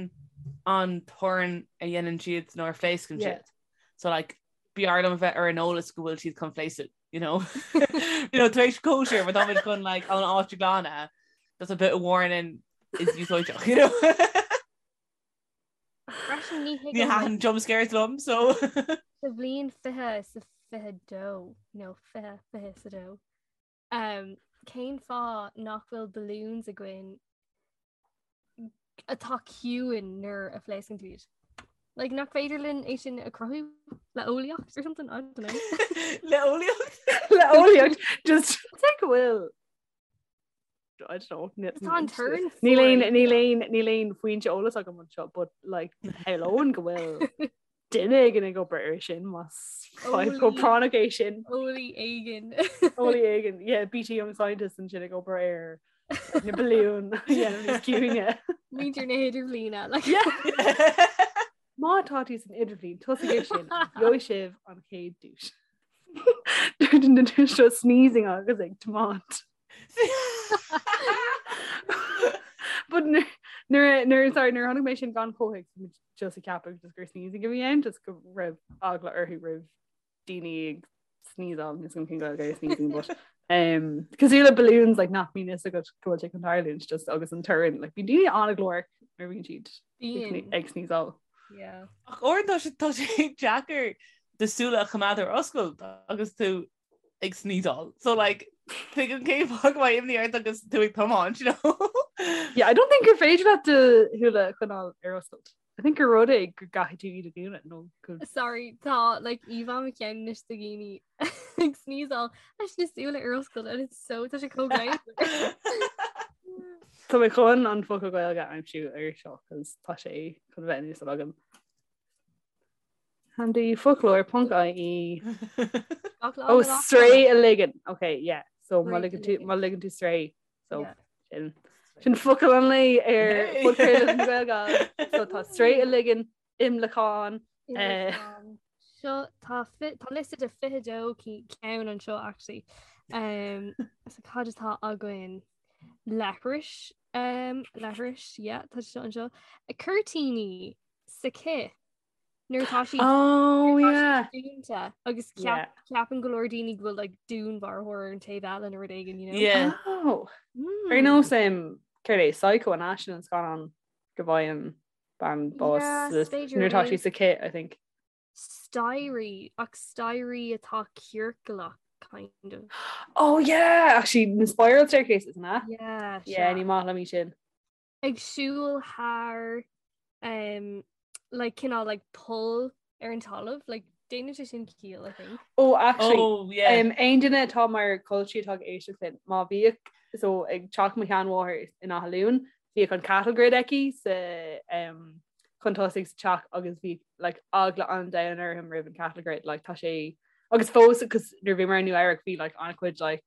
an torann a dhéanann siad nuair a phléascann Yeah. siad. So like b'fhearr liom a bheith ar an eolas go bhfuil siad chun pléascadh, you know? you know, tar éis cóisir má táimid chun like an áit a ghlanadh, just a bit of warning is úsáideach, you know? Freisin ní Ní thuigim thaitin jump scares liom, so sa bhliain 20 sa 22 nó 20 20 sa dó. Um, cén fáth nach bhfuil balloons againn atá ciúin nuair a phléascann tú iad? Like, nach féidir linn é sin a chruthú le eolaíocht or something? I don't know. Le eolaíocht? Le eolaíocht just take go bhfuil I don't know. Tá an torann Níl aon fuar. níl aon níl aon foinse eolais agam anseo, but like shamhlóinn go bhfuil duine éigin ag obair ar sin más fadhb chomh práinneach é sin. Eolaí éigin. Eolaí éigin, yeah, BT Young Scientist ansin ag obair ar na balúin a dhéanamh níos ciúine. Muintir na hidirbhliana. Like. Yeah. Má tá tú san idirbhliain, tosaigh ar sin, gheobhaidh sibh an chéad duais. Dúirt an duine seo sneezing agus ag tiomáint. But nuair nuair sorry nuair a chonaic mé sin gan chomhthéacs bhí mé just ag ceapadh just gur sneezing a bhí ann just go raibh eagla orthu roimh daoine ag sneezeáil níl a fhios agam cén Gaeilge ar sneezing but um cosúil le balloons like nach mbíonn fhios agat go bhfuil sé chun tarlúint just agus an torann like bíonn daoine an-ghlórach nuair a bhíonn siad Bíonn. ag sneezeáil. Yeah. Ach uaireanta tá sé tá sé deacair do súile a choimeád ar oscailt agus tú ag sneezeáil. So like tuigim cén fáth go mbeadh imní ort agus tú ag tiomáint, you know? Yeah, I don't think gur féidir leat do shúile a choinneáil ar oscailt. I think gur rud é go gcaithfidh tú iad a dhúnadh nó go Sorry, tá like íomhá i mo cheann anois de dhaoine. ag sneezeáil leis na súile ar oscailt and it's so tá sé chomh greannmhar. Tá mé chun an focal Gaeilge a aimsiú ar seo cos tá sé chun bheith in úsáid agam. Handy foclóir.ie Gach lá Oh na lá sraoth a ligean. Ok, yeah. So má Sraoth a ligean tú ligean. má ligean tú sraoth. So Yeah. sin sin focal an lae ar Hey! podchraoladh na Gaeilge. So tá sraoth a ligean, imleacán, eh, Imleacán. Seo tá tá liosta de 22 ceann anseo actually. Um, so cad atá againn? Leithris, um, leithris, yeah, tá seo anseo. Cuirtíní sa cith. Nuair atá siad Oh nuair atá yeah. siad dúnta agus Yeah. ceap, ceapann go leor daoine go bhfuil like, dúnmharfóir ar an taobh eile nó rud éigin, you know? Yeah. Oh. Mm. Ar nós um, céard é Psycho an sin an scannán go bhfaigheann bean bás Yeah, sa- b'fhéidir nuair atá é. sí sa cith, I think. Staighrí ach staighrí atá ciorclach kind of. Oh yeah, actually na spiral staircases na? Yeah, Yeah, sea. ní maith liom sin. Ag siúl thar um, like cineál like poll ar an talamh, like déanann sé sin ciall, I think. Oh actually, Oh yeah. um, aon duine atá mar cultí atá ag éisteacht linn, má bhíodh so ag teach mo sheanmháthar in Áth Luain, bhíodh an cattle grid aici sa um, chun tosaigh sa teach agus bhí like, eagla an domhain orm roimh an cattle grid like, tá sé agus fós cos nuair bhí mé i Nua Eabhrac bhí like, an-chuid like,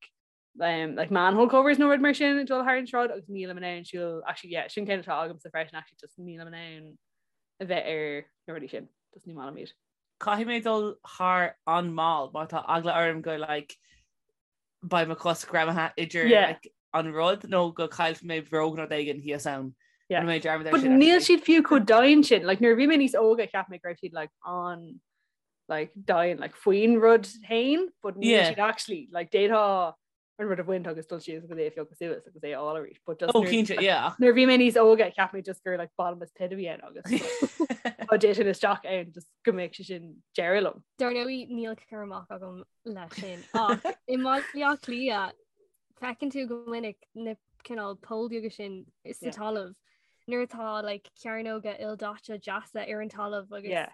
um, like manhole covers nó rud mar sin ag dul thar an sráid agus nílim in ann siúl actually yeah, sin ceann atá agamsa freisin actually just nílim in ann a bheith ar na rudaí sin just ní maith liom iad. Caithfidh mé dul thar an mall mar tá eagla orm go like beidh mo chos greamaithe idir Yeah. like, an rud nó go caillfidh mé bróg nó rud éigin thíos ann. Yeah. Rinne mé dearmad ar But sin, níl actually. siad fiú chomh domhain sin like nuair a bhí mé níos óga cheap mé go raibh siad like an like domhain like faoin rud féin but níl Yeah. siad actually like d'fhéadfá an rud a bhaint agus dul síos agus é a phiocadh suas agus é a fháil arís but just Ó nuair- cinnte, yeah. ach- nuair a bhí mé níos óga cheap mé just gur like bottomless pit a bhí ann agus dá dtitfinn isteach ann just go mbeadh sé sin deireadh liom. Dar ndóigh níl cur amach agam leis sin ach i mBaile Átha Cliath feiceann tú go minic na cineál poill beaga sin sa Yeah. talamh nuair atá like cearnóga ildaite deasa ar an talamh agus Yeah.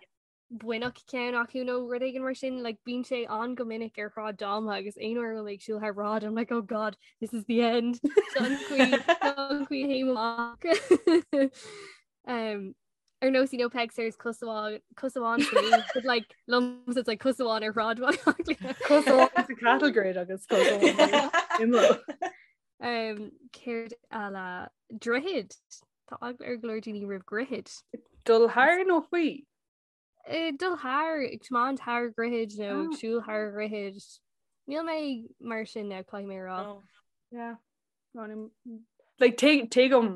baineadh ceann acu nó rud éigin mar sin like bíonn sé an go minic ar Shráid Dáma agus aon uair a bhfuil mé ag siúl thar bráid I'm like oh god this is the end Seo an chaoi seo an chaoi a théim amach. um, ar nós you know Peig Sayers cos amháin cos amháin sa lúb, but like liomsa it's like cos amháin ar Shráid Bhaile Átha Cliath. Cos amháin sa cattle grid agus cos amháin imeall. Um, céard eile droichid Tá eagla ar go leor daoine roimh dhroichid. Dul thar nó faoi? Eh, dul thar ag tiomáint thar dhroichid nó ag Ah. siúl thar dhroichid. Níl mé mar sin now caithfidh mé a rá. No. Yeah. No, ní- Like tuig- tuigim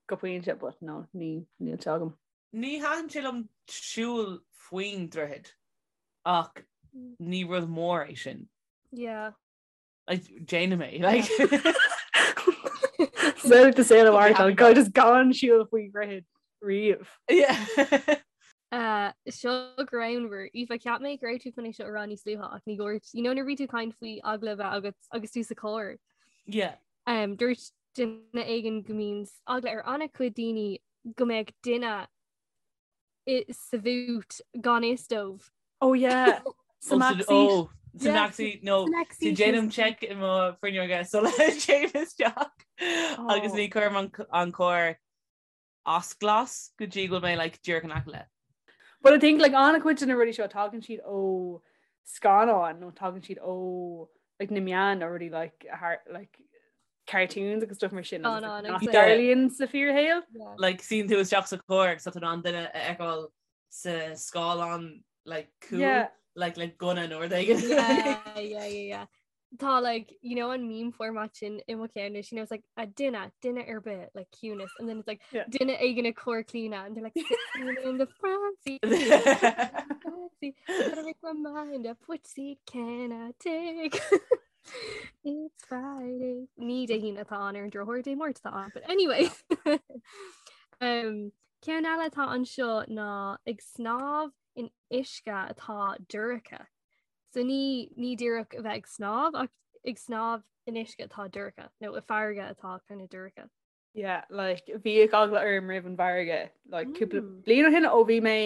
go pointe but no ní níl sé agam. Ní thaitin sé liom siúl faoin droichead ach ní rud mór é sin. Yeah. Like, déanaim é, like. So to say the word happy go just gan siúl faoi dhroichead riamh. Yeah. Uh, seo greannmhar Aoife cheap mé go raibh tú chun é seo a rá níos luaithe ach ní dúirt you know nuair a bhí tú ag caint faoi eagla a bheith agat agus tú sa charr. Yeah. Um, dúirt duine éigin go mbíonn eagla ar an-chuid daoine go mbeadh duine i sa bhút gan fhios dóibh. Oh yeah. Sa Oh, back seat. oh, sa Yeah. back seat, no. Sa back So seat déanaim is- check i mo fuinneoga sula dtéim isteach agus Oh. ní chuirim an an carr as glas go dtí go bhfuil mé like díreach in aice leis. But I think like an-chuid de na rudaí seo tagann siad ó scannáin nó tagann siad ó like na meáin nó rudaí like har like cartoons agus stuff mar sin agus, Scannáin like, agus nach like- dtarlaíonn sa fíorshaol. Yeah. Like suíonn tú isteach sa charr agus tá tú in ann duine a fheiceáil sa scáileán like cúl Yeah. like le gunna nó rud éigin. yeah, yeah, yeah, yeah. Tá like you know an meme format sin i mo cheann you know it's like a duine duine ar bith like ciúnas and then it's like Yeah. duine éigin ag cur claoine and they're like sitting in the front seat front seat, gotta make my mind up which seat can I take It's Friday. Ní Dé hAoine atá ann ar an drochuair Dé Máirt atá ann but anyway um, ceann eile atá anseo ná ag snámh in uisce atá dorcha. So ní ní díreach a bheith ag snámh ach ag snámh in uisce atá dorcha nó i farraige atá kind of dorcha. Yeah, like bhíodh eagla orm roimh an bhfarraige like cúpla Mm. bliain ó shin ó bhí mé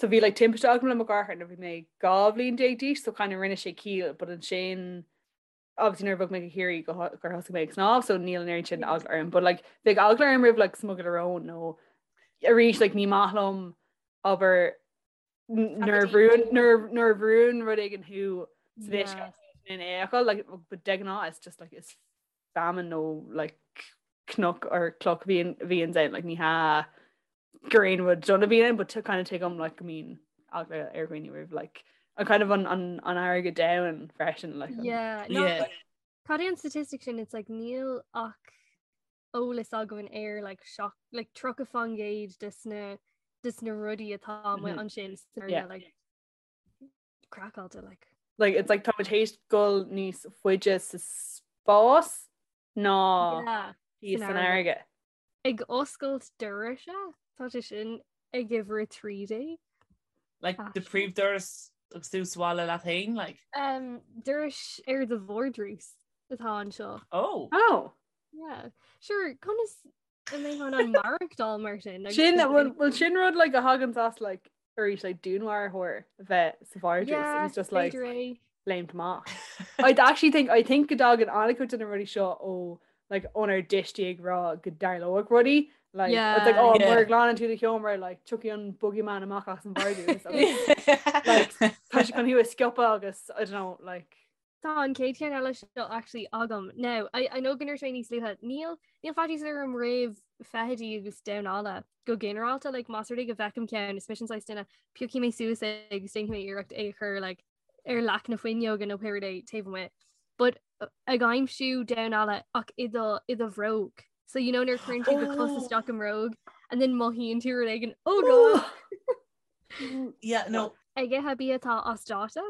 So bhí like timpiste agam le mo dheartháir nuair bhí mé 12 bhliain d'aois so kind of rinne sé ciall but ansin obviously nuair a bhog mé go Ciarraí go gur thosaigh mé ag snámh so níl an oiread sin eagla orm but like bheadh eagla orm roimh like smugairle róin nó arís like ní maith liom abair nuair a bhrúnn nuair a bhrúnn rud éigin thú san uisce in aon chor like but de ghnáth it's just like is feamainn nó like cnoc or cloch bhíonn bhíonn ann like ní hea gur aon rud dona bhíonn ann but to kind of tuigim like go mbíonn eagla ar dhaoine roimh like an kind of an an an fharraige domhain freisin like an, Yeah, no, Yeah. Cad é an statistic sin it's like níl ach eolas againn ar like seach like 30% des na des na rudaí atá amuigh Mhm. ansin san fharraige, Yeah. like craiceáilte like. Like it's like táimid théis dul níos faide sa spás ná Yeah, thíos san san fharraige. fharraige. Ag oscailt dorais tá sé sin ag uimhir 13. Like the príomhdoras agus tú sa bhaile leat féin like? Um, dorais ar do vardrús atá anseo. Oh. Oh. Yeah. Sure, conas a mbeifeá in ann maireachtáil mar sin? Like, Sin well sin rud like a thagann as like arís like dúnmharfóir a bheith sa vardrús Yeah, and it's just like b'fhéidir é. léimt amach. I actually think I think go dtagann an-chuid de na rudaí seo ó like ónár dtuistí ag rá go dtarlódh rudaí like it's like Yeah. oh Yeah. mura nglanann tú do sheomra like tiocfaidh an boogeyman amach as an vardrús agus like tá sé chun thú a sciobadh agus I don't know like Tá an chéad cheann eile seo actually agam. Now, I, I know go ndúirt mé níos luaithe, níl, níl faitíos orm roimh feithidí agus damhán alla go ginearálta, like, más rud é go bhfeicim ceann, is mise an saghas duine, piocfaidh mé suas é agus déanfaidh mé iarracht é a chur like, ar leac na fuinneoige nó pé rud é taobh amuigh. But uh, ag aimsiú damhán alla ach i do, i do bhróg. So you know nuair a chuireann tú do chos Oh. isteach i mbróg and then mothaíonn tú rud éigin, oh god! Yeah, no. Ag ithe bia atá as dáta?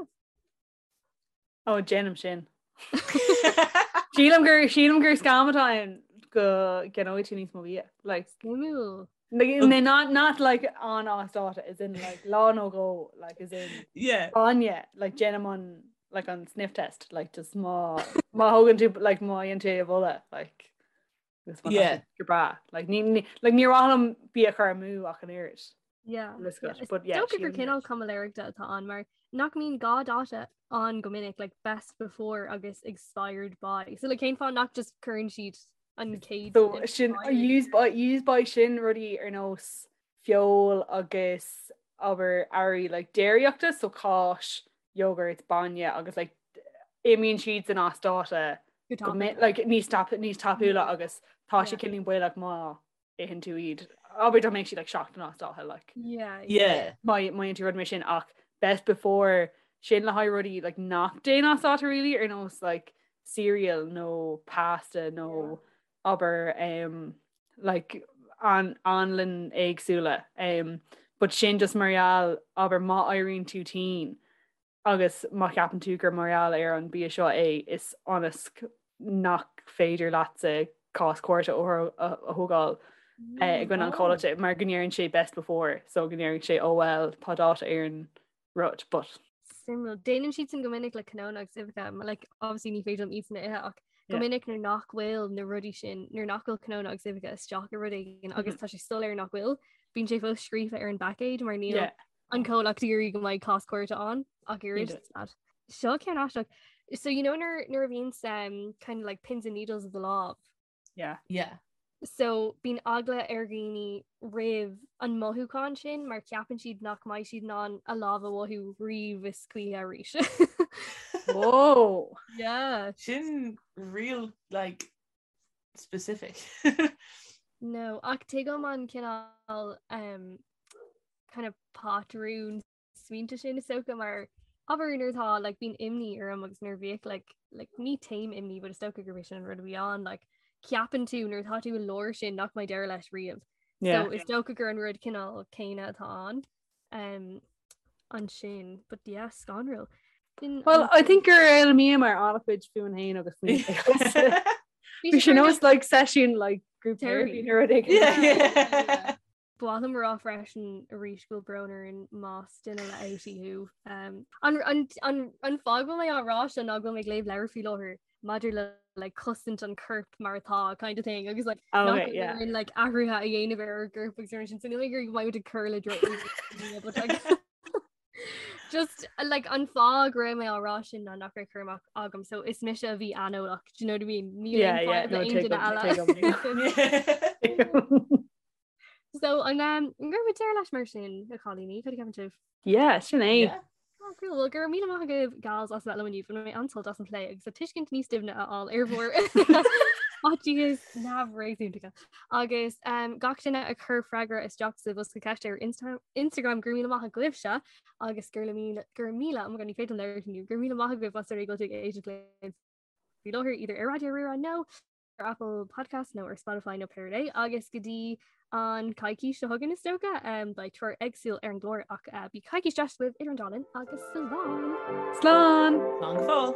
Ó déanaim sin. Sílim gur sílim gur scam atá ann go gceannóidh tú níos mó bia. Like Suimiúil. like, no, not not like an as dáta as in like lá nó dhó like as in Yeah. bainne like déanaim an like an sniff test like just má má thógann tú like má dhéanann tú é a bholadh like agus má tá Yeah. sé go breá like ní ní like ní mhaith liom bia a chur amú ach an oiread. Yeah. Let's yeah. go. But yeah, Dócha gur sílim cineál caimiléireachta atá ann mar nach mbíonn dhá dáta ann go minic like best before agus expired by. So like cén fáth nach just cuireann siad an chéad So sin use by use by sin rudaí ar nós feoil agus abair earraí like déiríochta so cáis, yogurt, bainne agus like imíonn siad san as dáta go go mi- like níos tap níos tapúla agus tá sé Yeah. cineál baolach má itheann tú iad. Abair dá mbeadh siad like seachtain as dáta like Yeah. Yeah. má má dhéanann tú rud mar sin ach best before sin le haghaidh rudaí like nach dtéann as dáta really ar nós like cereal nó pasta nó abair um, like an anlann éagsúla um, but sin just mar gheall abair má éiríonn tú tinn agus má cheapann tú gur mar gheall ar an bia seo é is ionas nach féidir leatsa cás cúirte a thógáil i gcoinne an chomhlachta mar go ndeireann sé best before so go ndeireann sé oh well tá dáta ar an rud but Suimiúil. Déanann siad sin go minic le cnónna agus uibheacha, mar like obviously ní féidir liom iad sin a ithe ach go Yeah. minic nuair nach bhfuil na rudaí sin, nuair nach bhfuil cnónna agus uibheacha isteach i rud éigin agus tá sé soiléir nach bhfuil, bíonn sé fós scríofa ar an bpaicéad mar níl Yeah. an comhlacht ag iarraidh go mbeidh cás cúirte ann ach oiread. Cinnte. Seo ceann aisteach. So you know nuair nuair a bhíonn um, kind of like pins and needles of the lámh. Yeah. Yeah. So bíonn eagla ar dhaoine roimh an mothúchán sin mar ceapann siad nach mbeidh siad in ann a lámh a mhothú riamh is choíche arís. Whoa. Yeah. Sin real like specific. No, ach tuigim an cineál um, kind of patrún smaointe sin is dócha mar abair nuair atá like bíonn imní orm agus nuair a bhíodh like like ní taom imní but is dócha gurb é sin an rud a bhí ann like ceapann tú nuair atá tú i lár sin nach mbeidh deireadh leis riamh. Yeah. So is dócha gur an rud cineál céanna atá ann um, ansin but yeah scanrúil. Sin Well, an- I think gur fhoghlaimíomar an-chuid fúinn féin agus faoin Bhí Bhí sé sin kind of- nós like session like group Therapy. therapy nó rud éigin. Yeah, yeah. Ba mhaith liom a rá freisin arís go bhfuil brón orainn más duine le outie thú. Um, an, an, an, an fáth go bhfuil mé á rá seo ná go bhfuil mé ag léamh leabhar faoi láthair maidir le like cosaint an corp mar atá kind of thing agus like oh, okay, yeah. in like athruithe a dhéanamh ar an gcorp agus sin so níl mé go mbeidh ag cur le but like just like an fáth go raibh mé á rá sin ná nach raibh cur amach agam so is mise a bhí aineolach do you know what I mean Níl Yeah, aon yeah, fadhb no, le aon tuigim, duine eile. tuigim. So an um, an gcuirfimid deireadh leis mar sin a chailíní, cad a cheapann sibh? Yeah, sin é. Yeah. Oh, cool. Well, go raibh míle maith agaibh gals as bheith liom inniu bhain mé an-sult as an plé agus an tuiscint níos doimhne a fháil ar bhur fhaitíos neamhréasúnta. Agus um, gach duine a chuir freagra isteach sa bhosca ceiste ar Insta Instagram go raibh míle maith agaibhse agus gur míle gur míle oh my God, ní féidir liom labhairt inniu, go raibh míle maith agaibh as ucht go bhfuil sibh ag éisteacht linn faoi láthair either ar Raidió Rí-Rá nó ar Apple Podcast nó ar Spotify nó pé rud é agus go dtí an coicís seo chugainn is dócha um, beidh triúr éagsúil ar an gclár ach uh, bíodh coicís deas agaibh idir an dá linn agus slán! Slán! Slán go fóill!